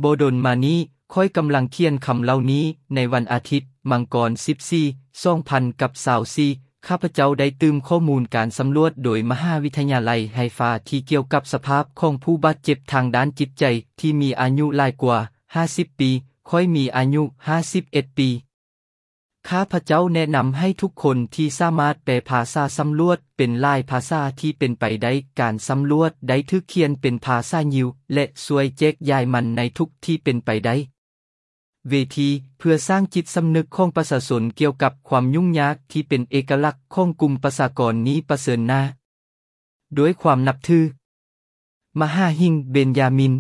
ບໍ່ດົນມານີ້, ຂ້ອຍກຳລັງຂຽນຄຳເຫຼົ່ານີ້ໃນວັນອາທິດ, ມັງກອນ ສິບສີ່ ສອງພັນກັບຊາວສີ່, ຂ້າພະເຈົ້າໄດ້ຕື່ມຂໍ້ມູນການສຳຫຼວດໂດຍມະຫາວິທະຍາໄລໄຮຟາທີ່ກ່ຽວກັບສະພາບຂອງຜູ້ບາດເຈັບທາງດ້ານຈິດໃຈທີ່ມີອາຍຸຫຼາຍກວ່າຫ້າສິບປີ. ຂ້ອຍມີອາຍຸຫ້າສິບເອັດປີ. ຂ້າພະເຈົ້າແນະນຳໃຫ້ທຸກຄົນທີ່ສາມາດແປພາສາສຳຫຼວດເປັນຫຼາຍພາສາທີ່ເປັນໄປໄດ້. ການສຳຫຼວດໄດ້ຖືກຂຽນເປັນພາສາຢິວ ແລະ ຊ່ວຍແຈກຢາຍມັນໃນທຸກທີ່ເປັນໄປໄດ້. ເວທີ ເພື່ອສ້າງຈິດສຳນຶກຂອງປະຊາຊົນກ່ຽວກັບຄວາມຫຍຸ້ງຍາກທີ່ເປັນເອກະລັກຂອງກຸ່ມປະຊາກອນນີ້ປະເຊີນໜ້າ ດ້ວຍຄວາມນັບຖື. ມະຫາຫິງ ເບັນຢາມິນ.